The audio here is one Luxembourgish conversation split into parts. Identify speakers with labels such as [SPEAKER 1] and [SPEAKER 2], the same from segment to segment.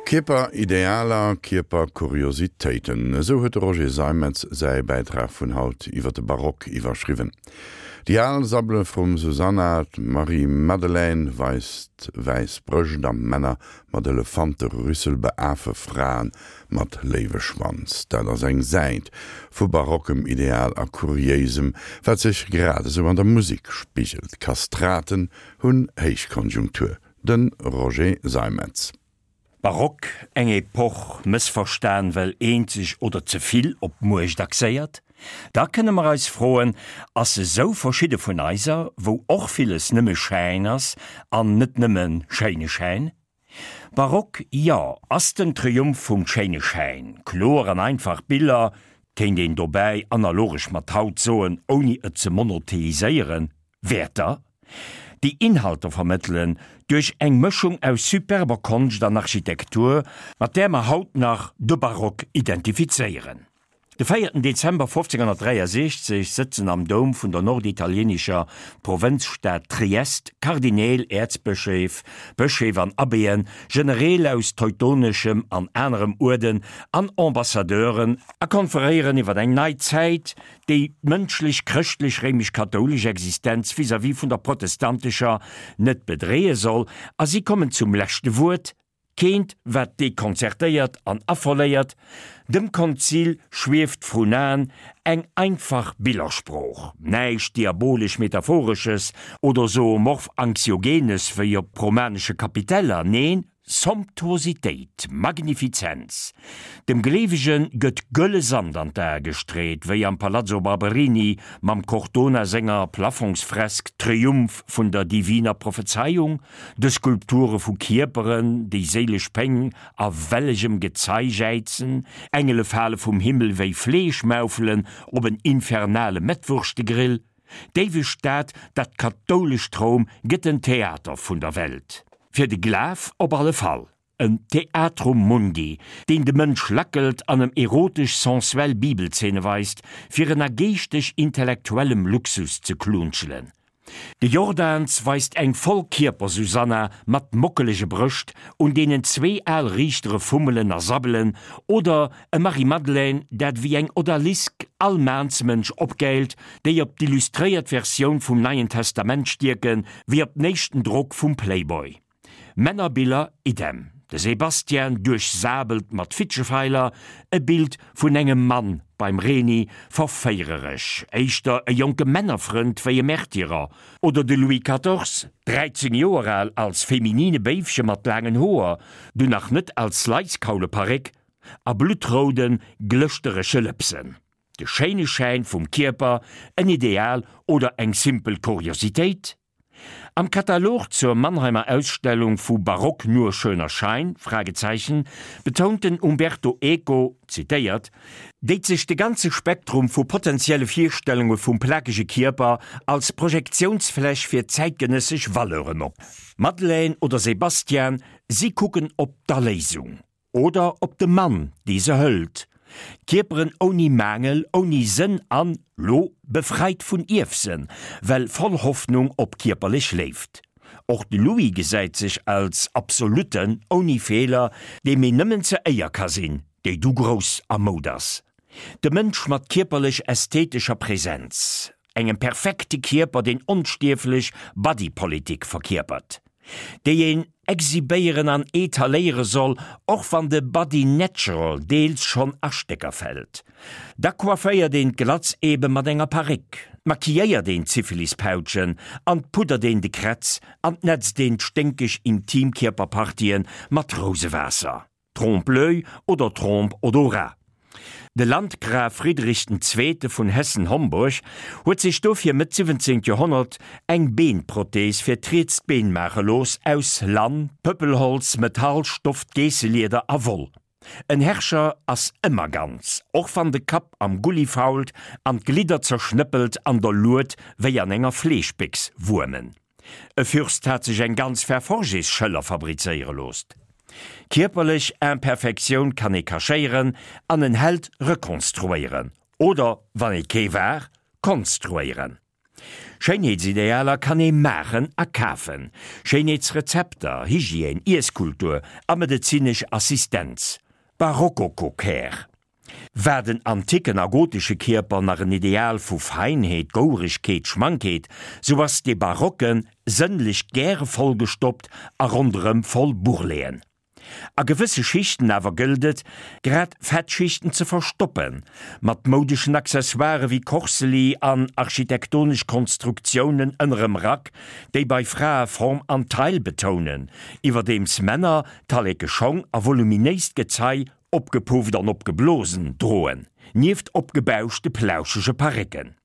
[SPEAKER 1] Kierperidealer, Kierperkuriositéiten, esou huet de Roger Seimetz säi Bäitrag vun haut iwwer de Barock iwwerschriwwen. Déi al Sabbele vrum Susanna, d'Marie-Madeleine weist wäiss Brëscht a Männer mat Elefanterüssel beafe Frae mat Léiweschwanz. Dat ass eng Säit vu barockem Ideal a Kuriéisem, wat sech grad esou an der Musek spigelt. Kastraten hunn Héichkonjunktur. De Roger Seimetz.
[SPEAKER 2] Barock, eng Epoch, mëssverstan well eenzeg oder ze vill op d'Muecht axéiert? Da kënne mer eis froen, ass se sou verschidde vun eiser, wou och villes nëmme Schäin ass an net nëmme schéine Schäin? Barock, jo, ass den Triumph vum schéine Schäin, kloer an einfach Biller, kéint een dobäi analogesch mat haut soen, ouni et ze monotheiséieren, Wäerter, déi Inhalter vermëttelen, duerch eng Mëschung aus superber Konscht an Architektur, mat där mer haut nach de Barock identifizéieren. De véierten Dezember 1563 sëtzen am Doum vun der norditalienescher Provënzstad Triest Kardineel, Äerzbëscheef, Bëscheef an Abbéen, Genereel aus teutoneschem an anerem Uerden an Ambassadeuren a konferéieren iwwer eng nei Zäit, déi d'mënschlech chrëschtlech-réimesch-kathoulesch Existenz vis-à-vis vun der protestantescher net bedreeë soll, a si kommen zum leschte Wuert, keent wat dekonzertéiert an affoléiert, dem Konzil schwieft vrun Aen eng einfach Billersprooch, näischt diabolesch-metaphoresches oder zoomorph-anxiogenes wéi op romanesche Kapiteller, neen, Somptuositéit, Magnifizenz. Dem Gleewege gëtt gëlle Sand an d'Ae gestreet, wéi am Palazzo Barberini mam Cortona senger Plafongsfresk Triumph vun der diviner Prophezeiung, de Skulpture vu Kierperen, déi séilesch Péng a wellegem Gezei jäizen, Engele fale vum Himmel wéi Fleeschmaufelen op en infernale Mettwurschte-Grill. D'éiweg Stad, dat kathoulescht Roum, gëtt en Theater vun der Welt. Fir de Glaf op alle Fall. En Theatrum Mundi, deen de Mënsch lackelt an em erotesch-sensuell Bibelzeene weist, fir en a geeschteg-intellektuellem Luxus ze klunschelen. De Jordaens weist eng Vollkierper-Susanna mat mockelege Brëscht, un deenen zwee al Riichtere fummelen a sabbelen, oder e Marie-Madeleine, dat wéi eng Odalisk all Maansmënsch opgäilt, déi op d'illustréiert Versioun vum Neien Testament stierken, wéi op den éischten Drock vum Playboy. Männerbiller idem. De Sebastian duerchsabelt mat Fitschefeiler, e Bild vun engem Mann beim Reni, verféiereresch, éischter e jonke Männerfrënd wéi e Märtyrer, oder de Louis Quatorze, 13 Joer al, als feminine Béifche mat laangen Hoer, du nach net als Laiskauleparréck, a bluttrouden, glëschterege Lëpsen. De schéine Schäin vum Kierper, en Ideal oder eng simpel Kuriositéit? Am Katalog zur Mannheimer Ausstellung vu Barock nur schöner Schein? Fragezeichen, betount den Umberto Eco, zitéiert, déit sech de ganze Spektrum vu potentielle Virstellunge vum plakege Kierper als Projektiounsfläch fir zäitgenëssesch Valeuren op. Madeleine oder Sebastian, si kucken op d'Erléisung. Oder op de Mann, dee se hëlt. Kierperen ouni Maangel, ouni Sënn an, lo, befreit vun Ierfsënn, well voll Hoffnung op kierperlech Léift. Och de Louis gesäit sech als Absolutten, ouni Feeler, deem een nëmmen ze Éier ka sinn, déi du grouss a Moud ass. De Mënsch mat kierperlech-ästhetescher Präsenz. Engem perfekte Kierper deen onstierflech Body Politic verkierpert, déi een exhibéieren an etaléiere soll, och wann de Body Natural deels schonn a Stécker fält. Da coifféiert een d'Glatz ebe mat enger Paréck, d'maquilléiert een d'Syphilispautschen an d'puddert een de Krätz an d'nätzt een d'sténkeg Intimkierperpartien mat Rousewaasser. Trompe-l'œil oder Trompe-odorat. De Landgraf Friedrich den Zweete vun Hessen-Homburg huet sech dofir Mëtt 17. Joerhonnert eng Beenprothees fir d'rietst Been maache looss, aus Lann, Pëppelholz, Metall, Stoff, Geesselieder a Woll. En Herrscher ass ëmmer ganz, och wann de Kapp am Gulli fault an d'Glidder zerschnëppelt an der Lued wéi an enger Fleeschbéchs wuermen. E Fürst hat sech eng ganz Verforges-Schëller fabrizéiere loosst. Kierperlech Imperfektioun kann ee cachéieren an en Held rekonstruéieren, oder, wann ee kee war, konstruéieren. Schéinheetsidealer kann ee maachen a kafen. Schéinheetsrezepter, Hygiène, Iesskultur a medezinesch Assistenz. Barocco-Care. War den anticken a gotesche Kierper nach en Ideal vu Feinheet, Gouregkeet, Schmankheet, sou ass dee Barocke sënnlech gäre vollgestoppt a ronderëm voll Bourreleten. A gewësse Schichten awer gëllt et, grad Fettschichten ze verstoppen, mat moudeschen Accessoiren wéi Korseli an architektonesch Konstruktiounen ënnerem Rack, déi bei Frae Form an Taille betounen, iwwerdeems Männer talleke Schong a voluminéist Gezei Opgepufft an opgeblosen droen, nieft opgebauschte plauschege Parécken.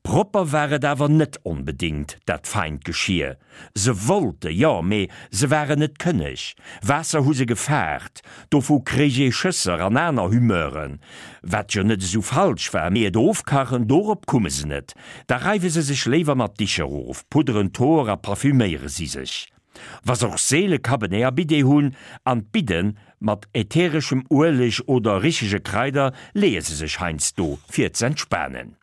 [SPEAKER 2] Propper war et awer net onbedéngt, dat feint Geschir. Se wollte jo, mee se waren net kënneg. Waasser hu se gefaart, dovu kréich ee Schësser an aner Humeuren, wat jo net esou falsch war, mee et ofkachen, dorop kumme se net. Da reiwe se sech léiwer mat Dicher of, pudderen d'Hoer a parfüméiere si sech. Wa se och seele Cabernet a Bidet hunn, an d'Bidden mat äthereschem Ueleg oder richege Kraider leeë se sech heiansdo fir z'entspanen.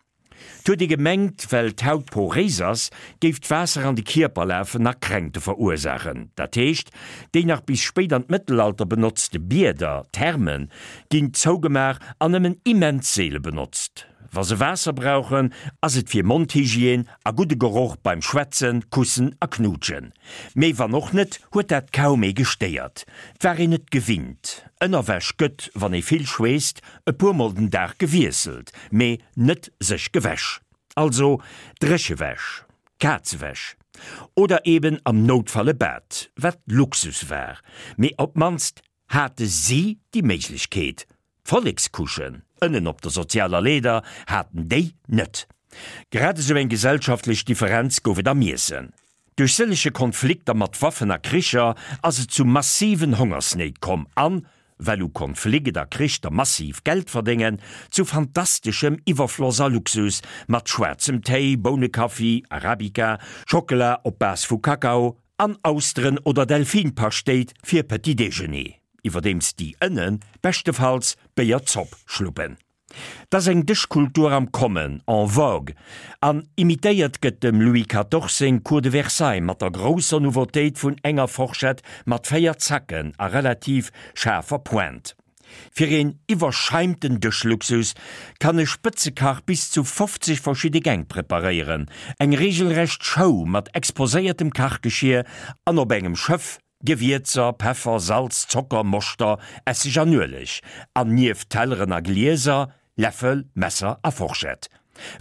[SPEAKER 2] 't huet ee gemengt, well d'Haut poréis ass, géif d'Waasser an de Kierper lafen a Kränkte verursaachen. Dat heescht, déi nach bis spéit an d'Mëttelalter benotzte Bieder, Thermen, ginn zougemaach an nëmmen immens seele benotzt. Wa se Waasser brauchen, ass et fir Mondhygiène a gudde Geroch beim Schwätzen, Kussen a Knuutschen. Mee wann och net, huet dat kaum ee gestéiert. 't war een et gewinnt. Ënnerwäsch gëtt, wann ee vill schweesst, e puer mol den Dag gewiesselt, mee net sech gewäsch. Also Dréchewäsch, Kazewäsch. Oder eben am Noutfall e Bad, wat Luxus war. Mee op d'mannst hate si déi Méiglechkeet. D'Vollekscouchen ënnen op der sozialer Leeder haten déi net. Grad esou eng gesellschaftlech Differenz gouf et am Iessen. Duerch sëllege Konflikter mat Waffen a Kricher ass et zu massiven Hongersnéit komm an, well u Konflikt a Krich der massiv Geld verdéngen, zu fantasteschem Iwwerfloss a Luxus mat schwaarzem Téi, Bounekaffi, Arabica, Schockela op Base vu Kakao an Austeren oder Delfinpaschtéit fir Petit Déjeuner. Iwwerdeems déi ënne beschtefalls Béierzopp schluppen. 't ass eng Dëschkultur am Kommen, en vogue, an imitéiert gëtt dem Louis Quatorze seng Cour de Versailles mat der grousser Nouveautéit vun enger Forschett mat 4 Zacken a relativ schaarfer Pointe. Fir een iwwerscheimten Dëschluxus kann e Spëtzekach bis zu 50 verschidde Gäng preparéieren, eng reegelrecht Show mat exposéiertem Kachgeschier an op engem Schëff Gewierzer, Peffer, Salz, Zocker, Moschter, Esseg an Ueleg, an nieft Telleren a Glieser, Läffel, Messer a Forschett.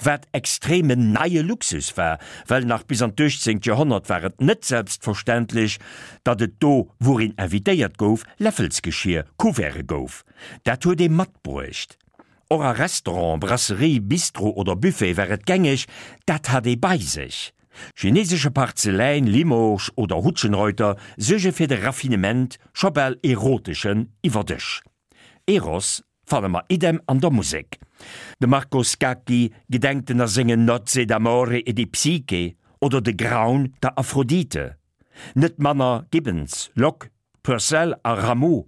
[SPEAKER 2] Wat extremen neie Luxus war, well nach bis an d'uechtzéngt Joerhonnert war et net selbstverständlech, datt et do, wou een invitéiert gouf, Läffelsgeschier, Couverte gouf. Dat huet ee matbruecht. Och a Restaurant, Brasserie, Bistro oder Buffet war et gängeg, dat hat ee bei sech. Chinesesche Parzeläin, Limoges oder Hutschenreuter suerge fir de Raffinement, scho bal eroteschen, iwwer Dësch. Eros fanne mer idem an der Musek. De Marco Scacchi gedenkt en a sengen Nozze d'amore e di Psyche oder de Graun der Aphrodite. Net manner Gibbons, Locke, Purcell a Rameau.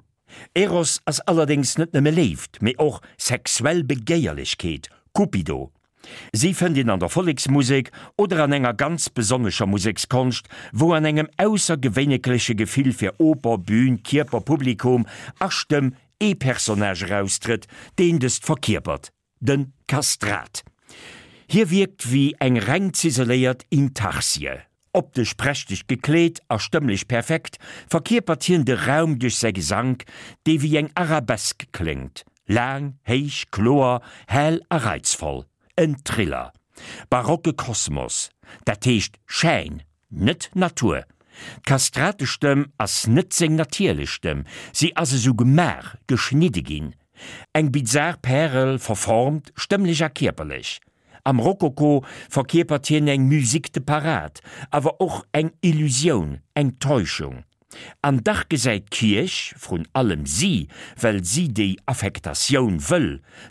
[SPEAKER 2] Eros ass allerdéngs net nëmme Léift, mee och sexuell Begéierlechkeet, Cupido. Si fënnt een an der Volleksmusek oder an enger ganz besonnescher Musekskonscht, wou an engem aussergewéinekleche Gefill fir Oper, Bühn, Kierper, Publikum a Stëmm ee Personnage eraustrëtt, deen dëst verkierpert. De Kastrat. Hie wierkt wéi eng reng ziseléiert Intarsie. Optesch prächteg gekleet a stëmmlech perfekt, verkierpert hien de Raum duerch säi Gesank, dee wéi eng Arabesque kléngt, laang, héich, kloer, hell a reizvoll. En Thriller. Barocke Kosmos, dat heescht Schäin, net Natur. D'Kastratestëmm ass net seng natierlech Stëmm, si ass esou gemaach, geschnidde ginn. Eng bizar Pärel, verformt, stëmmlech a kierperlech. Am Rokoko verkierpert hien eng Musique de parade, awer och eng Illusioun, eng Täuschung. An dach gesäit d'Kierch, vrun allem si, well si déi Affektatioun wëll,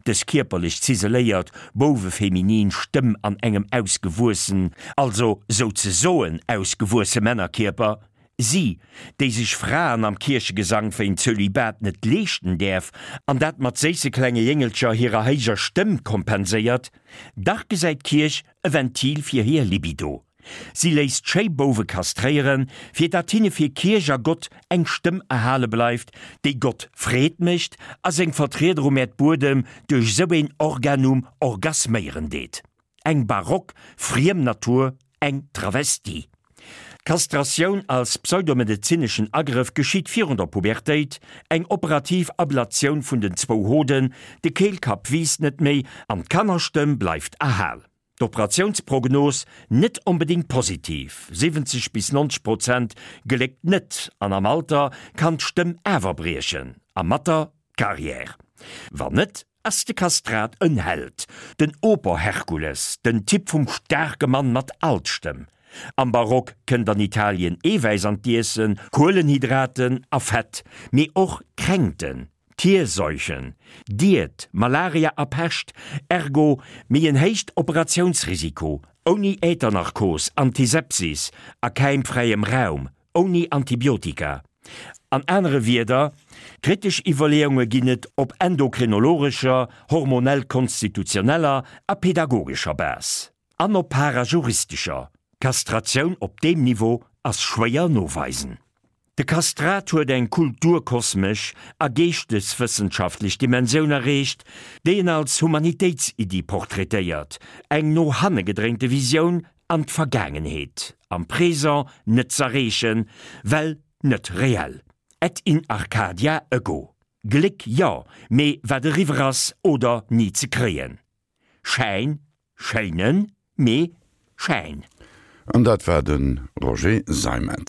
[SPEAKER 2] dës kierperlech ziseléiert, bouwefeminin Stëmm an engem ausgewuessen, also souzesoen ausgewuesse Männerkierper. Si, déi sech Fraen am Kierchegesank wéint Zölibat net leeschten däerf an dat mat séisse klenge Jéngelcher hirer héijer Stëmm kompenséiert, dach gesäit d'Kierch e Ventil fir hir Libido. Si léisst schéi Bouwe kastréieren, fir dat hinne fir Kierch a Gott eng Stëmm erhale bleift, déi Gott Freed mécht a seng Vertrieder um Äerdbuedem duerch sou een Organum orgasméieren deet. Eng barock friem Natur, eng Travestie. D'Kastratioun als pseudomedezineschen Agrëff geschitt virun der Pubertéit, eng operativ Ablatioun vun den zwou Hoden, de Keelkapp wiisst net méi an d'Kannerstëmm bleift erhal. D'Operatiounsprognos net onbedéngt positiv, 70 bis 90 Prozent geléckt net an am Alter kann d'Stëmm awer briechen a mat der d'Carrière. Wann net, Ass de Kastrat en Held, den Oper-Herkules, den Typ vum staarke Mann mat Altstëmm? Am Barock kënnt an Italien Eewäiss an d'Iessen, Kuelenhydraten a Fett, mee och Kränkten, Tierseuchen, Diet, Malaria a Pescht, ergo méi en héicht Operatiounsrisiko, ouni Äthernarkos, Antisepsis a käimfräiem Raum, Ouni Antibiotika. An anere Wierder, kritesch Iwwerleeunge ginn et op endokrinologescher, hormonell-konstitutioneller a pedagogescher Base. An op parajuristescher. Kastratioun op deem Niveau ass schwéier noweisen. De Kastrat huet eng kulturkosmesch a geeschteswëssenschaftlech Dimensioun erreecht, déi en als Humanitéitsiddi portraitéiert, eng no hanne gedréinte Visioun an d'Vergaangenheet, am Présent net z'erreechen, well net reell. Et in Arcadia ego. Gléck jo, mee wat eriwwer ass oder ni ze kréien. Schäin, schéinen, mee Schäin.
[SPEAKER 1] An dat war de Roger Seimetz.